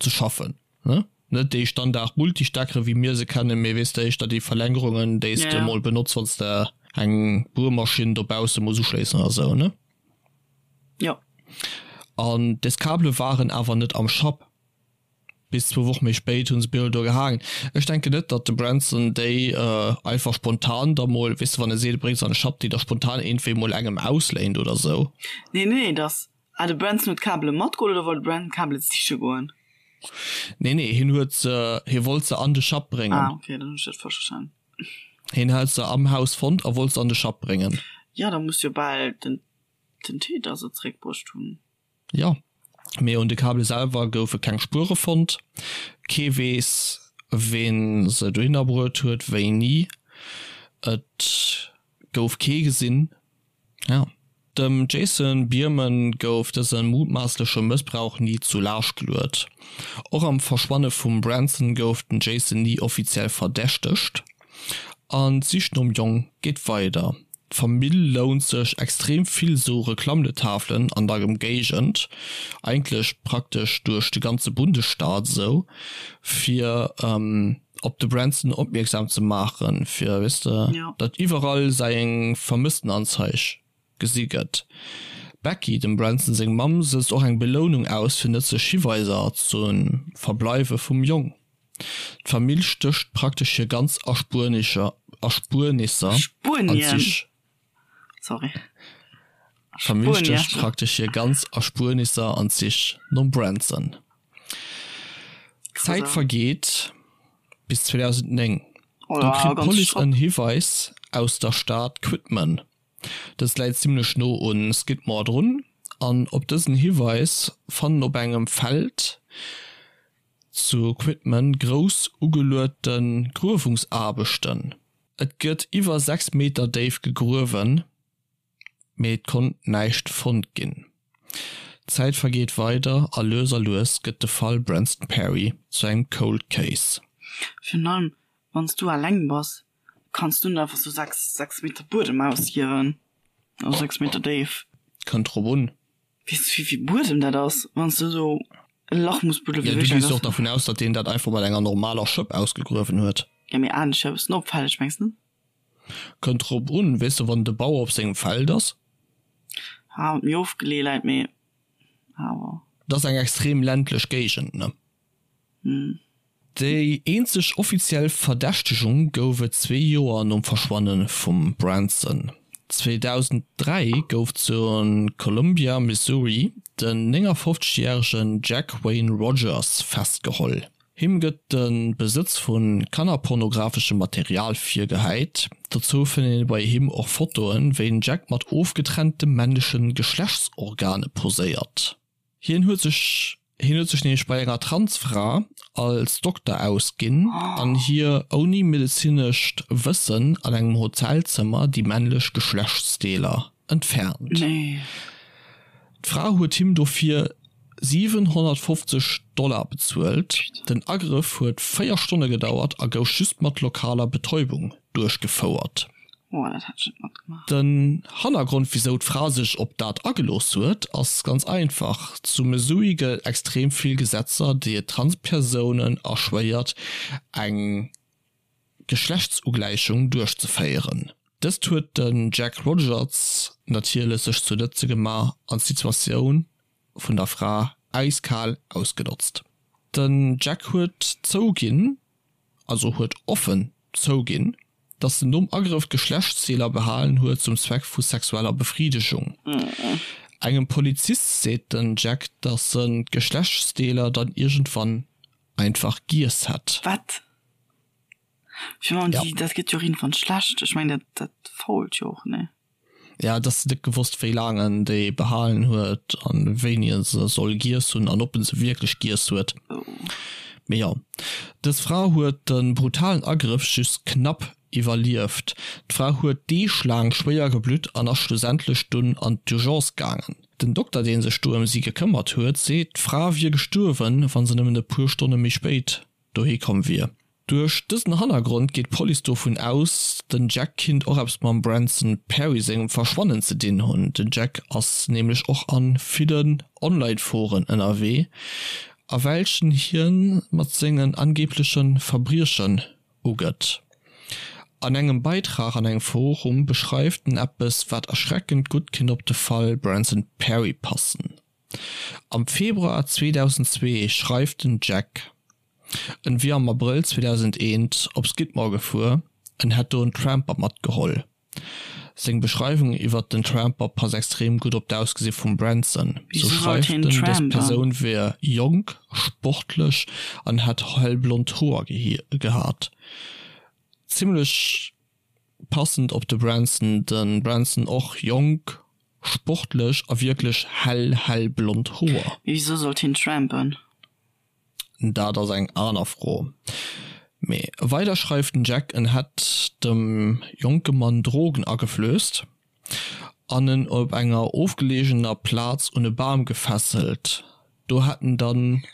ze schaffen ne, net déi Standard Multisteckere wéi mir se kennen, mee weess de éischter déi Verlängerungen déi s de mol benotz wann s de eng Buermaschinn dobausse muss uschléissen oder sou ne. Jo. An des Kabele waren awer net am Schapp. Bis zwou Woche méi spéit hu se Bill do gehaangen. Ech denken net, datt de Branson déi einfach spontan da mol, weess de, wann e seet, e bréngt se an de Schapp, déi da spontan iergendwéi mol engem ausléint oder sou. Nee, nee, dass, ah, de Branson huet d'Kabele matgeholl oder wollt de Branson d'Kabele siche goen? Nee, nee, hien huet se, hie wollt se an de Schapp bréngen. Ah, okay, dann hunn ech dat falsch verstanen. Hien hat se am Haus fonnt a wollt se an de Schapp bréngen. Jo, da muss jo bal den, den Täter se zeréckbruecht hunn. Jo, mee un de Kabele selwer goufe keng Spuere fonnt. Kee weess, ween se dohinner bruet huet, wéini. Et gouf kee gesinn. Jo. Dem Jason Biermann gouf dëse mutmaassleche Mëssbrauch ni zu Laascht geluet. Och am Verschwanne vum Branson gouf den Jason ni offiziell verdächtegt. An d'Sich nom Jong geet weider. D'Famill lount sech extrem vill sou Reklammletafelen an der Ëmgéigend, eigentlech praktesch duerch de ganze Bundesstaat esou, fir op de Branson opmierksam ze maachen, fir, weess de, datt iwwerall säi Vermësstenanzeig gesi gëtt. D'Becky, dem Branson seng Mamm, sëtzt och eng Belounung aus fir nëtzlech Hiweiser zum Verbleiwe vum Jong. D'Famill stécht praktesch hir ganz Erspuernisser an d'Sich. D'Famill stécht praktesch hir ganz Erspuernisser an d'Sich nom Branson. D'Zäit vergeet bis 2009, do kritt d'Police en Hiweis aus der Stad Quitman. Dës läit zimmlech no un Skidmore drun an op dësen Hiweis fannen op engem Feld zu Quitman grouss ugeluete Gruewungsaarbechten. Et gëtt iwwer 6 Meter déif gegruewen, mee et konnt näischt fonnt ginn. D'Zäit vergeet weider a lues a lues gëtt de Fall Branston Perry zu engem Cold Case. Virun allem wann s du alleng bass, kanns du net einfach sou 6, 6 Meter Buedem ausgiewen, also 6 Meter déif. Kënnt drop un. Weess du wéivill Buedem dat ass, wann s du esou e Lach muss buddelen? Ja, du gees jo och dervun aus, datt deen dat einfach mat enger normaler Schëpp ausgegruewen huet. Ja, mee anescht wär e bëssen opfälleg, mengs net? Kënnt drop un, weess de, wann de Bauer op sengem Feld ass. Ah, méi ofgeleeë läit, mee awer. Dat ass eng extrem ländlech Géigend, ne? Déi eenzeg offiziell Verdächtegung gouf et zwee Joer nom Verschwanne vum Branson. 2003 gouf zu Columbia, Missouri, den 59 järegen Jack Wayne Rogers festgeholl. Him gëtt de Besëtz vu kannerpornografeschem Material virgehäit. Dozou fënnt een bei him och Fotoen, wéi den Jack mat ofgetrennte männleche Geschlechtsorgane poséiert. Hien huet sech hien huet sech nämlech bei enger Transfra als Dokter ausginn an hir ouni medezinescht Wëssen an engem Hotelzëmmer déi männlech Geschlechtsdeeler entfernt. D'Fra huet him dofir 750 Dollar bezuelt. Den Agrëff huet 4 Stonne gedauert a gouf just mat lokaler Betäubung duerchgefouert. Oh, dat hätt ech net matgemaach. Den Hannergrond wisou d'Fra sech op dat agelooss huet ass ganz einfach, Zu Missouri gëtt et extrem vill Gesetzer déi et Transpersounen erschwéiert eng Geschlechtsugläichung duerchzeféieren. Dëst huet den Jack Rogers natierlech sech zu Nëtze gemaach an d'Situatioun vun der Fra äiskal ausgenotzt. Den Jack huet zouginn, also huet offen zouginn, dass en nom Agrëff d'Geschlechtsdeeler behalen huet zum Zweck vu sexueller Befridegung. Engem Polizist seet den Jack, dass en d'Geschlechtsdeeler dann iergendwann einfach giess hätt. Wat? Fir man, déi, dat gëtt jo och iergendwann schlecht. Ech mengen, dat, dat fault jo och, nee? Ja, et ass net gewosst, wéi laang en déi behalen huet an wéini en se soll giess hunn an ob en se wierklech giess huet. Mee jo, dës Fra huet de brutalen Agrëff just knapp iwwerlieft. D'Fra huet Deeg laang schwéier geblutt an ass schlussendlech dunn an d'Urgence gaangen. Den Dokter, dee sech do ëm si gekëmmert huet, seet, d'Fra wier gestuerwen, wa se nëmmen e puer Stonne méi spéit dohi komm wier. Duerch dësen Hannergrond geet d'Police dovun aus, den Jack kinnt och eppes mam Branson Perry sengem Verschwannen ze dinn hunn. Den Jack ass nämlech och a villen Online-Foren ënnerwee, a welchen hien mat sengen angebleche Verbriechen ugëtt. An engem Beitrag an engem Forum beschreift en eppes, wat erschreckend gutt kinnt op de Fall Branson Perry passen. Am Februar 2002 schreift den Jack, en wier am Abrëll 2001 op Skidmore gefuer, en hätt do en Tramper matgeholl. Seng Beschreiwung iwwert den Tramper passt extrem gutt op d'Ausgesi vum Branson. Sou Wieso sollt schreift hien en, dës trampen? Persoun wier jonk, sportlech an hätt hellblond Hoer gehat. Zimmlech passend op de Branson, de Branson och jonk, sportlech a wierklech hell hellblond Hoer. Mee wieso sollt hien trampen? Dat ass eng aner Fro. Mee weider schreift den Jack, en hätt dem jonke Mann Drogen ageflösst an en op enger ofgeleegener Plaz un e Bam gefesselt. Do hätt en dann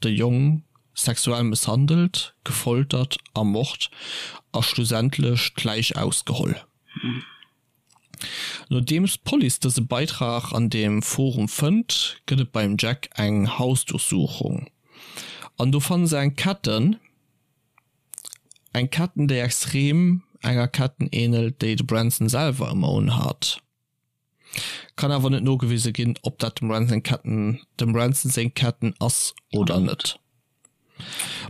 de Jong sexuell mësshandelt, gefoltert, ermort a schlussendlech d'Läich ausgeholl. Nodeems d'Police dëse Beitrag an deem Forum fënnt, gëtt et beim Jack eng Hausdurchsuchung an do fanne se eng Ketten, eng Ketten déi extrem enger Ketten ähnelt, déi de Branson selwer ëmmer unhat. Kann awer net nogewise ginn, ob dat dem Branson Ketten, dem Branson seng Ketten ass oder net.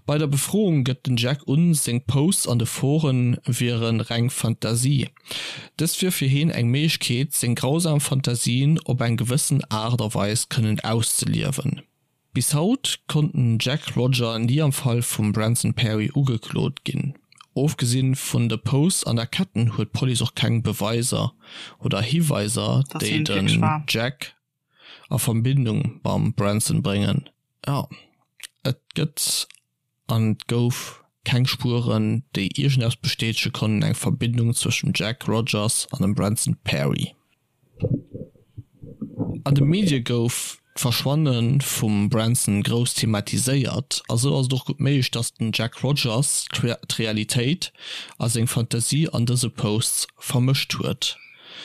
Bei der Befroung gëtt den Jack un, seng Posts an de Foren wiere reng Fantasie. Dëst wier fir heen eng Méiglechkeet, seng grausam Fantasien op eng gewëssen Aart a Weis kënnen auszeliewen. Bis haut konnt den Jack Rodger ni am Fall vum Branson Perry ugeklot ginn. Ofgesinn vun de Posts an der Ketten huet d'Police och keng Beweiser oder Hiweiser, Dass déi hien et wierklech den war. Jack a Verbindung mam Branson bréngen. Jo, et gëtt an et gouf keng Spueren, déi iergendeppes bestätege konnten, eng Verbindung zwëscht dem Jack Rogers an dem Branson Perry. An de Medie gouf d'Verschwanne vum Branson grouss thematiséiert, a sou ass et och gutt méiglech, datt den Jack Rogers d'Realitéit a seng Fantasie an dëse Posts vermëscht huet.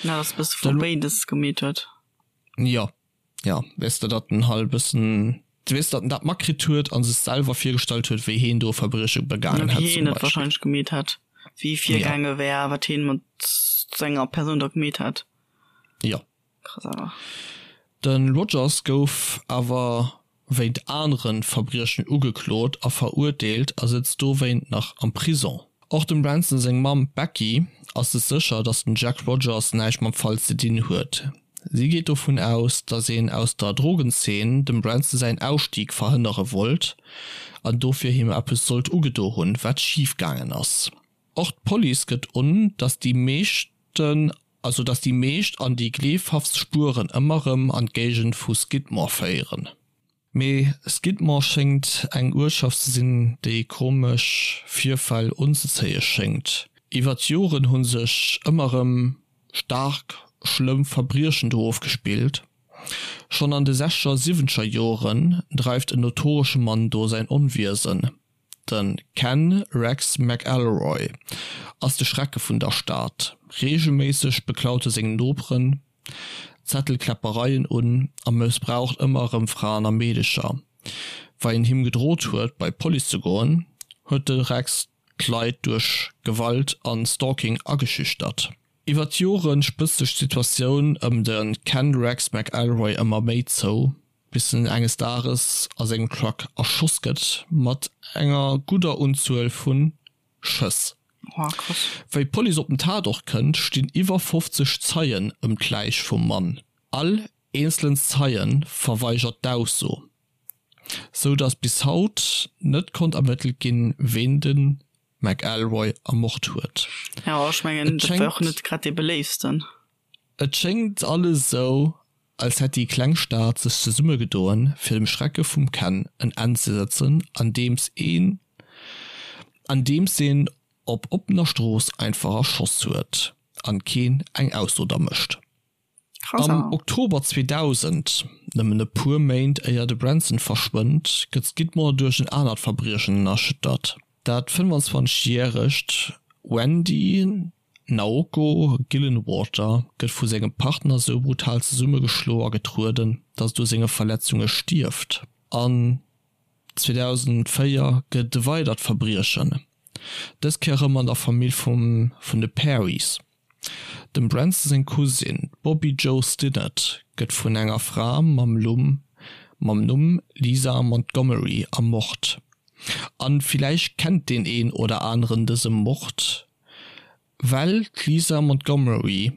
Ja, datt e bësse vu béides gemeet huet. Jo, jo, weess de, datt en halt e bëssen, weess, datt en dat matkritt huet a sech selwer virgestallt huet, wéi heen do e Verbrieche begaangen hätt, zum Wéi heen et Beispill. wahrscheinlech gemeet hätt, wéi e virgaange wär, wat heen mat senger Persoun da gemeet hätt. Jo. Krass awer. De Rogers gouf awer wéint anere Verbriechen ugeklot a verurteelt a sëtzt dowéint nach am Prison. Och dem Branson seng Mamm d'Becky ass sech sécher, datt den Jack Rogers näischt mam Fall ze dinn huet. Si geet dovun aus, datt een aus der Drogenzeen dem Branson säin Ausstig verhënnere wollt an dofir him eppes sollt ugedo hunn, wat schif gaangen ass. Och d'Police gëtt un, datt déi meeschten also datt déi meescht an déi gleefhaftst Spueren ëmmer rëm an d'Géigend vu Skidmore féieren. Mee Skidmore schéngt eng Uertschaft ze sinn, déi komesch Virfäll unzezéie schéngt. Iwwer d'Joren hu sech ëmmer rëm staark schlëmm Verbriechen do ofgespillt. Schonn an de sechzeger a siwwenzeger Joren dreift en notoresche Mann do säin Onwiesen. De Ken Rex McElroy ass de Schrecke vun der Stad. Reegelméisseg beklaut e seng Noperen, zettelt Kläppereien un a mëssbraucht ëmmer erëm Fraen a Meedecher. Wei en him gedrot huet bei d'Police ze goen, huet de Rex d'Leit duerch Gewalt an Stalking ageschüchtert. Iwwer d'Jore spëtzt sech d'Situatioun ëm de Ken Rex McElroy ëmmer méi zou, bis en enges Dages a sengem Truck erschoss gëtt mat enger gudder Unzuel vu Schëss. Wéi d'Police op den Tatort kënnt, stinn iwwer 50 Zeien ëm d'Läich vum Mann. All eenzelen Zeie verweigert d'Ausso, sou datt bis haut net konnt ermëttelt ginn, ween de McElroy ermort huet. Jo, ech mengen, dat war och net grad dee beléiftsten. Et schéngt alles esou, als hätt déi kleng Stad sech zesummegedoen, fir dem Schrecke vum Ken en Enn ze setzen, andeems een andeems een op oppener Strooss einfach erschoss huet an keen eng Ausso da mécht. Am Oktober 2000, nëmmen e puer Méint éier de Branson verschwënnt, gëtt Skidmore duerch en anert Verbriechen erschüttert. Dat 25 järegt Wendy Naoko Gillenwater gëtt vu sengem Partner sou brutal zesummegeschlo a getrueden, datt et u senge Verletzunge stierft. An 2004 gëtt et e weidert Verbriechen, dës Kéier erëm an der Famill vum vun de Perrys. Dem Branson seng Cousine, d'Bobbi Jo Stinnett, gëtt vun enger Fra mam Lumm mam Numm Lisa Montgomery ermort. An villäicht kennt deen een oder aneren dëse Mord, well d'Lisa Montgomery,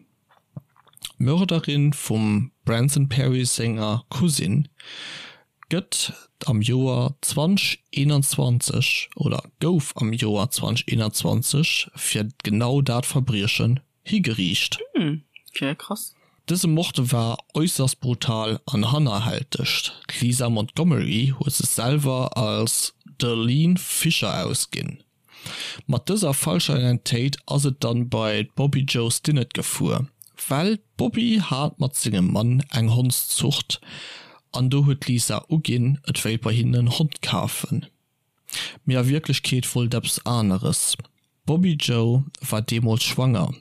d'Mörderin vum Branson Perry senger Cousine, gëtt am Joer 2021 oder gouf am Joer 2021 fir genau dat Verbriechen higeriicht. Hm, okay, krass. Dëse Mord war äusserst brutal an hannerhälteg. D'Lisa Montgomery huet sech selwer als Darlene Fisher ausginn. Mat dëser falscher Identitéit ass et dann bei d'Bobbi Jo Stinnett gefuer, well d'Bobbi hat mat sengem Mann eng Hondszucht an do huet d'Lisa uginn et wéilt bei hinnen en Hond kafen, mee a Wierklechkeet wollt eppes aneres. D'Bobbi Jo war deemools schwanger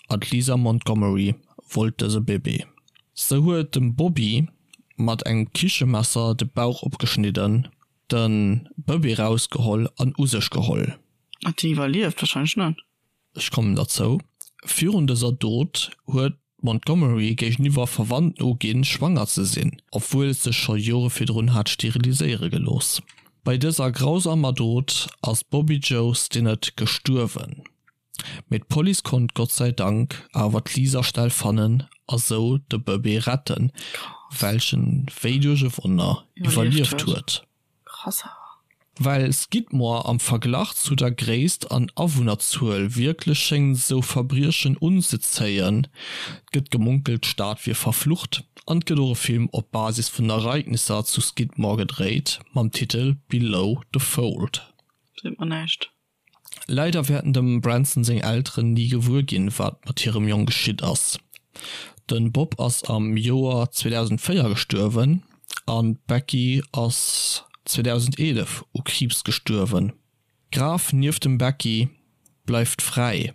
an d'Lisa Montgomery wollt dëse Bébé. Se huet dem Bobbi mat engem Kichemesser de Bauch opgeschnidden Den Bëbee rausgeholl an u sech geholl. Hat deen iwwerlieft? Wahrscheinlech net. Ech kommen derzou. Virun dëser Dot huet d'Montgomery géigeniwwer Verwandten uginn, schwanger ze sinn, obwuel et sech scho Jore virdrun hat steriliséiere gelooss. Bei dëser grausamer Dot ass d'Bobbi Jo Stinnett gestuerwen. Mee d'Police konnt Gott sei Dank awer d'Lisa schnell fannen a sou de Bëbee retten, welchen wéi duerch e Wonner iwwerlieft huet. Well Skidmore am Verglach zu der Gréisst an Awunnerzuel wierklech schéngt sou Verbriechen unzezéien, gëtt gemunkelt d'Stad wier verflucht an et gëtt och e Film op Basis vun den Ereignisser zu Skidmore gedréit mam Titel Below the Fold. Seet mer näischt. Leider wäerten dem Branson seng Elteren ni gewuer ginn, wat mat hirem Jong geschitt ass. De Bob ass am Joer 2004 gestuerwen an d'Becky ass 2011 u Kriibs gestuerwen. D'Graf nieft dem Becky bleift fräi.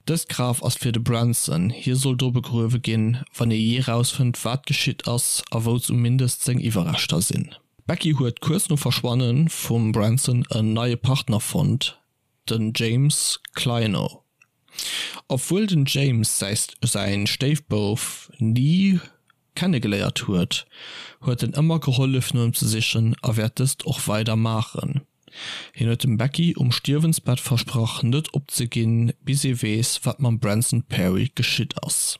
Dëst Graf ass fir de Branson, hie soll do begruewe ginn, wann ee jee rausfënnt, wat geschitt ass a wou zumindest seng Iwwerreschter sinn. D'Becky huet kuerz nom Verschwanne vum Branson en neie Partner fonnt, den James Clino. Obwuel den James säi Stéifbouf ni kennegeléiert huet, huet en ëmmer gehollef no em ze sichen a wäert dëst och weider maachen. Hien huet dem Becky um Stierwensbett versprach net opzeginn, bis ee weess wat mam Branson Perry geschitt ass.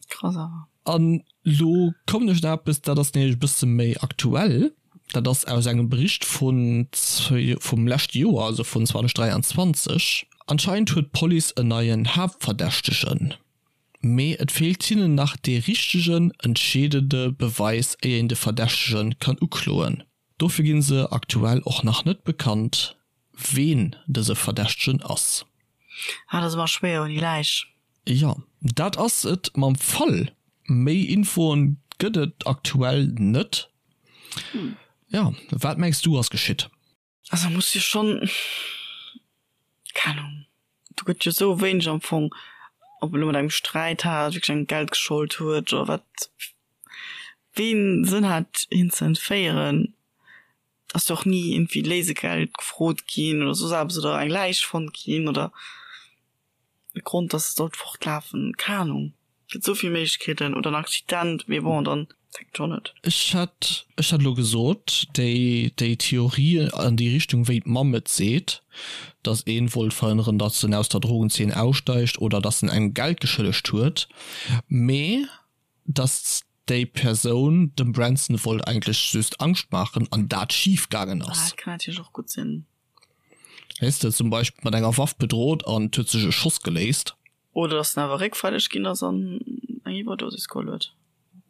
Krass awer. An lo kommen ech nach eppes, dat ass nämlech e bësse méi aktuell, dat ass aus engem Bericht vun vum leschte Joer, also vun 2023. Anscheinend huet d'Police en neien Haaptverdächtegen, mee et feelt hinnen nach dee richtegen, entscheedende Beweis, éier een de Verdächtege kann ukloen. Dofir ginn se aktuell och nach net bekannt, ween dëse Verdächtegen ass. Ah, dat ass ëmmer schwéier ouni Läich. Jo, dat ass et mam Fall. Méi Infoen gëtt et aktuell net. Jo, wat mengs du ass geschitt? Also muss jo schonn, keng Ahnung, do gëtt jo sou wéineg am Fong, ob elo mat engem Sträit hat, wierklech engem Geld geschold huet oder wat, ween Sënn hat hien ze entféieren. Ass jo och ni iergendwéi Léisegeld gefrot ginn oder soss eppes oder eng Läich fonnt ginn oder. E Grond dass se sollt fortlafen, keng Ahnung, gëtt esou vill Méiglechkeeten, oder en Accident, mee bon dann fänkt scho net. Ech hätt, ech hätt elo gesot, déi, déi Theorie an déi Richtung wéi d'Mamm et seet, dass een wollt verhënneren, dass en aus der Drogenzeen aussteigt oder dass en engem Geld geschëllegt huet, mee dass déi Persoun dem Branson wollt eigentlech just Angscht maachen an dat schif gaangen ass. Ah, dat kann natierlech och gutt sinn. Weess de, zum Beispill mat enger Waff bedrot an et huet sech e Schoss geléist. Oder dass en awer réckfälleg ginn ass an eng Iwwerdosis geholl huet.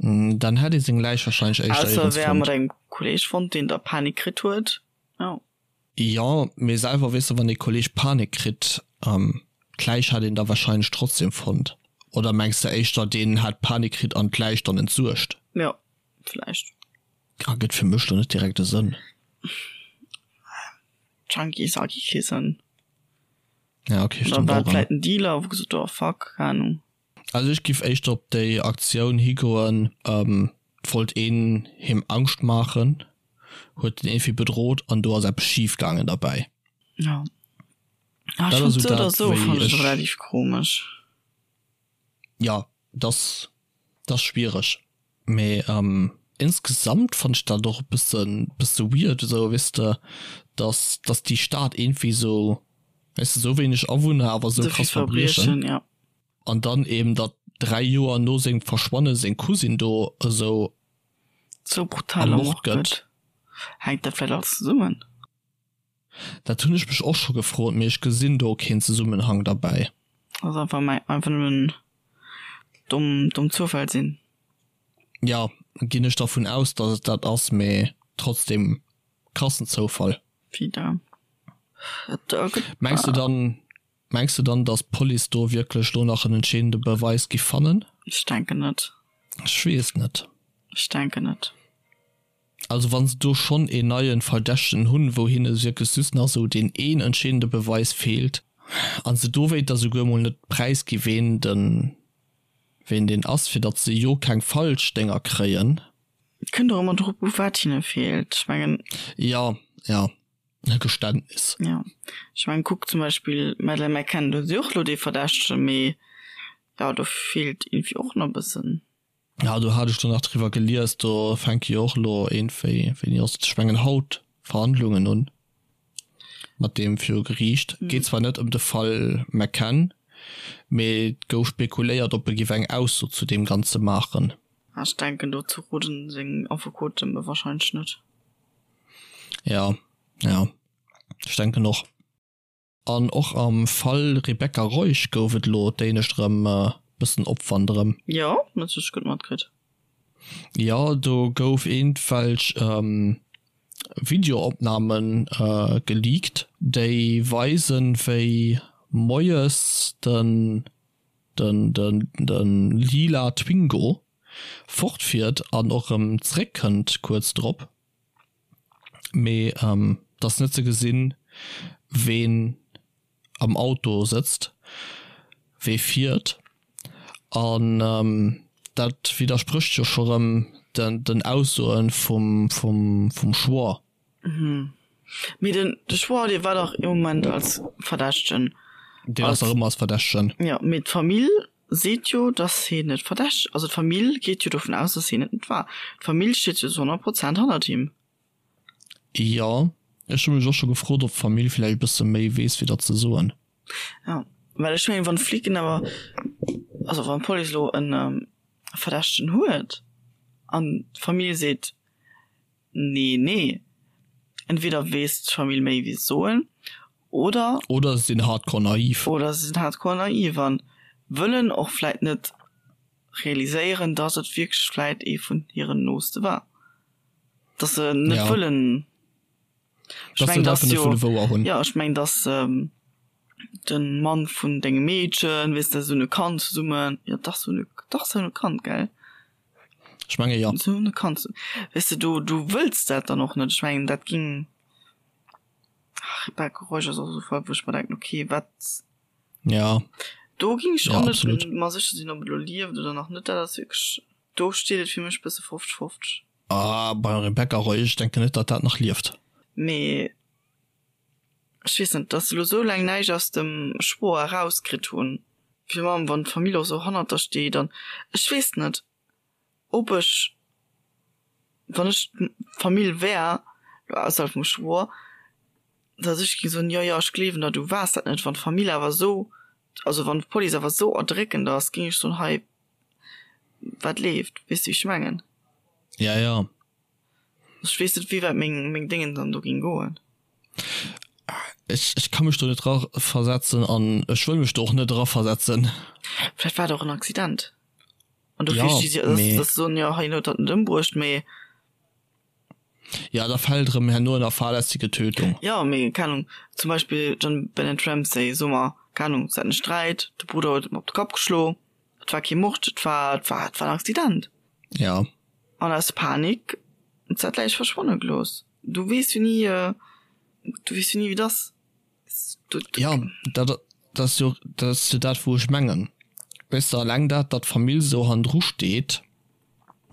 Dann hätt ee seng Läich warscheinlech éischter Ausser e wär mat engem Kolleeg fonnt, deen da Panik kritt huet, jo. Jo, mee selwer, weess de, wann ee Kolleeg Panik kritt, d'Läich hätt een da warscheinlech trotzdem fonnt. Oder mengs de éischter, deen hätt Panik kritt an d'Läich dann entsuergt? Jo, vläicht. Ergëtt fir mech lo net direkt e Sënn. Junkies ergi kee Sënn. Ja, okay, stimmt Oder war et vläit en Dealer, wou gesot huet, oh fuck, keng Ahnung. Also ech giff éischter op déi Aktioun higoen, et wollt een him Angscht maachen, huet en iergendwéi bedroht an do ass eppes schif gaangen derbäi. Ja. Ah, ech Dat ass fand esou sou oder dat sou wéi fand ech ech. relativ komesch. Ja, dat ass schwiereg. Mee insgesamt fannt ech dat och e bëssen bësse weird esou, weess de, dass dass déi Stad iergendwéi esou, weess de, esou wéineg Awunner awer esou Esou vill krass Verbriechen. Verbriechen, ja. An dann eben datt 3 Joer no sengem Verschwanne seng Cousine do esou Sou brutal ermort ermort gëtt. gëtt. Hänkt dat vläicht alles zesummen? Dat hunn ech mech och scho gefrot, mee ech gesinn do keen Zesummenhang derbäi. Ass einfach mei einfach nëmmen domm domm Zoufäll sinn. Jo, ginn ech dervun aus dass et dat ass, mee trotzdem krassen Zoufall. Wieder. Et gëtt. Mengs de dann, mengs de dann dass d'Police do wierklech lo nach en entscheedende Beweis giff fannen? Ech denken net. Ech weess net. Ech denken net. Also wann se do schonn een neien Verdächtegen hunn, wou hinne wierklech just nach esou deen een entscheedende Beweis feelt, an se dowéinter souguer mol net präisgi ween den ween deen ass, fir datt se jo keng falsch Dénger kréien. Et kënnt och ëmmer drop u wat hinne feelt. Ech mengen. Jo, jo, e Geständnis. Jo, ech mengen kuck zum Beispill d'Madeleine McCann, do hu si och elo dee Verdächtegen, mee jo do feelt iergendwéi och nach e bëssen. Ja do hat ech do nach driwwer gelies, do fänke jo och elo iergendwéi, wéini ass et, ech mengen haut, Verhandlungen un mat deem viru Geriicht. Geet zwar net ëm de Fall McCann, mee et gouf spekuléiert, ob e giff eng Ausso zu deem Ganze maachen. Ech denken dozou roden seng Affekoten warscheinlech net. Ja, ja, ech denken och. An och am Fall Rebecca Reusch gouf et elo d'éinescht erëm e bëssen Opwand erëm. Jo, dat hu ech gutt matkritt. Jo, do gouf iergendwelch Videoopname geleakt, déi weisen, wéi moies den lila Twingo fortfiert an och erëm zeréckkënnt kuerz drop. Mee et ass net ze gesinn, ween am Auto sëtzt, wee fiert. An dat widdersprécht jo scho rëm den Aussoe vum Schwoer. Mee den de Schwoer, dee war dach ee Moment als Verdächtegen. Deen ass nach ëmmer als Verdächtegen. Jo, mee d'Famill seet jo, dass hien net verdächteg, also d'Famill geet jo dovun aus, dass hien et net war. D'Famill steet jo zu 100 Prozent hannert him. Jo, ech hu mech och scho gefrot, ob d'Famill vläicht e bësse méi weess, wéi datt se soen. Jo, well ech mengen, wann d'Flicken awer, also wann d'Police elo e Verdächtegen huet an d'Famill seet, Nee, nee. Entweder weess d'Famill méi wéi se soen, oder. Oder se sinn hardcore naiv. Oder se sinn hardcore naiv an wëllen och vläit net realiséieren, dass et wierklech vläit ee vun hiren Nooste war. Dass se net Ja. wëllen. Ech Dass se mengen, et dass einfach net jo. wëlle wouer hunn. Jo, ech mengen, dass de Mann vun dengem Meedchen, weess de, se hunn e Kand zesummen, jo dach, se hunn e, dach se hunn e Kand, gell? Ech menge jo. Se hunn e Kand, weess de, du, du wëlls dat dann och net. Ech mengen, dat ging, ach, Rebecca Reusch ass och esou e Fall, wou ech mer denken, okay, wat, Ja. do ging ech Ja, och net absolut. mer sécher sinn, ob et elo lieft oder nach net. Dat ass wierklech, do steet et fir mech e bësse 50, 50. Ah, bei Rebecca Reusch, ech denken net, datt dat nach lieft. Mee ech weess net, dass se elo sou laang näischt aus dem Schwoer erauskritt hunn, fir allem wann d'Famill och sou hannert der steet an ech weess net, ob ech, wann ech d'Famill wär, elo ausserhalb vum Schwoer, dass ech géing soen, jo jo ech gleewen der, du waars dat net. Wann d'Famill awer sou, also wann d'Police awer sou erdréckend ass, géing ech soen, hei wat leeft, weess de wéi ech mengen? Ja, ja. Ech weess net wéi wäit meng meng Déngen dann do ging goen. Ech ech ka mech do net raversetzen an ech wëll mech do och net eraversetzen. Vläicht war et och en Accident an dofir Ja, sti si dass mee. dass se soen, jo hien huet dat net ëmbruecht, mee. Ja, da fält erëm herno ënner fahrlässige Tötung. Jo, mee keng Ahnung, zum Beispill JonBenét Ramsey, soe mer, keng Ahnung, se haten e Sträit, de Brudder huet em op de Kapp geschlo, et war kee Mord, et war et war et war en Accident. Ja. An aus Panik huet se dat Läich verschwanne gelooss. Du weess jo ni, du weess jo ni wéi et ass. Ja, dat. Dat ass jo, dat ass jo dat, wou ech mengen. Weess de, alleng dat, datt d'Famill esou hannendru steet,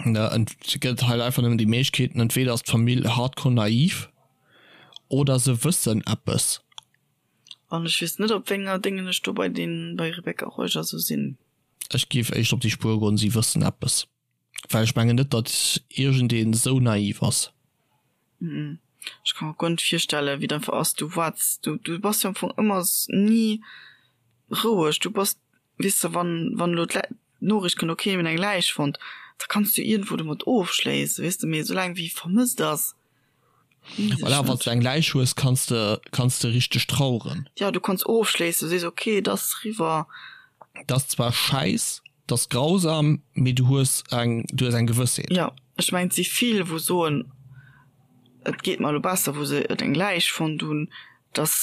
ne, et gëtt halt einfach nëmmen déi Méiglechkeeten, entweder ass d'Famill hardcore naiv oder se wëssen eppes. An ech weess net, op wénger Déngen ech do bei den, bei Rebecca Reuger esou sinn. Ech géif éischter op déi Spuer goen, si wëssen eppes. Well ech mengen net, datt iergendeen esou naiv ass. Ech ka mer guer net virstellen, wéi et einfach ass. Du waarts, du, du bass jo am Fong ëmmer ni roueg. Du bass, weess de, wann, wann elo d'Noriicht kënnt, okay, mir hunn eng Läich fonnt, da kanns du iergendwou domat ofschléissen, weess de. Mee esoulaang wéi vermësst ass, weess ech Voilà, wann s net. du eng Läich hues, kanns de, kanns de richteg traueren. Jo, du kanns ofschléissen, du sees, okay, et ass eriwwer. Et ass zwar schäiss, 't ass grausam, mee du hues eng, du hues eng Gewëssheet. Jo, ech mengen, et si vill, wou soen, et geet mer elo besser, wou se et eng Läich fonnt hunn, datt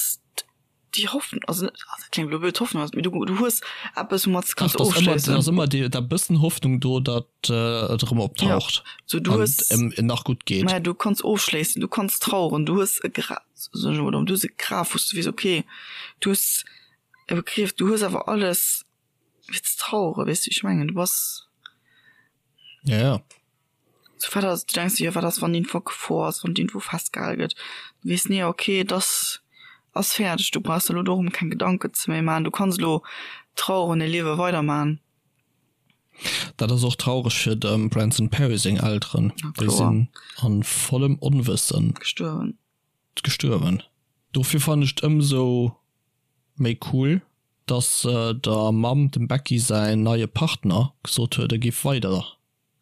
déi Hoffnung, also net, dat kléngt elo blöd, Hoffnung ass, mee du, du hues eppes, woumat s de kanns ofschléissen. Et ass ëmmer déi, dat bëssen Hoffnung do, datt et erëm optaucht an et em nach gutt geet. Maja, du kanns ofschléissen, du kanns traueren, du hues e Gra, soen ech emol, du hues e Graf, wou s du weess, okay, du hues e Begriff, du hues awer alles. Fir ze traueren, weess du, wéi ech mengen? Du bass. Ja, ja. So wat ass, du denks dir, jo, wat ass, wann iergendwou Gefor ass, wann iergendwou festgehale gëtt? Du weess, nee, okay, et ass, ass fäerdeg, du brauchs der elo dorëm keng Gedanken ze méi maachen, du kanns elo traueren, e Liewe weiderman. Dat ass och traureg fir dem Branson Perry seng Elteren. Na Déi kloer. sinn a vollem Onwëssen. Gestuerwen. Gestuerwen. Dofir fannen ech et ëmsou méi cool, dass der Mamm, dem Becky säin neie Partner, gesot huet, e géif weider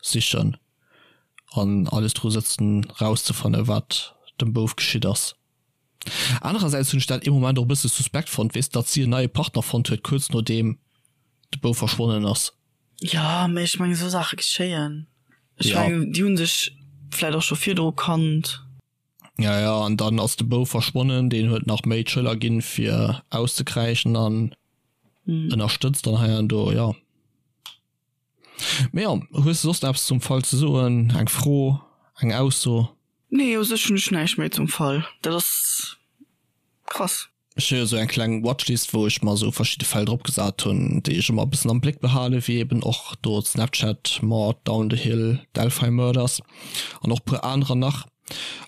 sichen an alles dru sëtzen rauszefanne wat dem Bouf geschitt ass. Anerersäits hunn ech dat ee Moment och e bësse suspekt fonnt, weess, datt si en neie Partner fonnt huet kuerz nodeem de Bouf verschwonnen ass. Jo, mee ech mengen esou Saache geschéien. Ech mengen déi hu sech vläit och scho virdru kannt. Ja, ja, an dann ass de Bouf verschwonnen, deen huet nach méi d'Schëller ginn fir auszekräischen an ënnerstëtzt dann hei an do, jo. Mee jo, hues de soss nach eppes zum Fall ze soen, eng Fro, eng Ausso? Nee, u sech hunn ech näischt méi zum Fall. Dat ass krass. Ech hu jo sou eng kleng Watchlist wou ech mer sou verschidde Fäll drop gesat hunn, déi ech ëmmer e bëssen am Bléck behalen, wéi eben och do d'Snapchat Mord, Down the Hill, Delphi Murders an och puer anerer nach.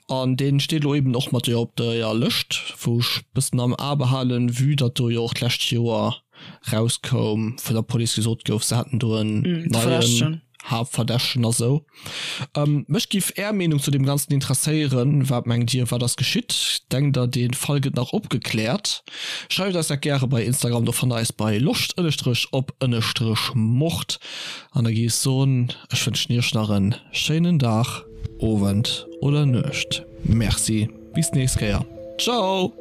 An dee steet elo eben och mat jo op der Lëscht wou ech bëssen am A behalen, vue datt do jo och d'lescht Joer rauskoum, vun der Police gesot gouf, se hätten do en neien Haaptverdächtegen a sou. Mech giff är Meenung zu deem Ganzen interesséieren. Wat mengt dir, wat ass geschitt? Denkt der, dee Fall gëtt nach opgekläert? Schreift eis dat gäre bei Instagram, do fannt der eis bei loscht ënnestrech op ënnestrech mord. An da gi ech soen, ech wënschen iech nach en schéinen Dag, Owend oder Nuecht. Merci, bis d'nächst Kéier. Ciao!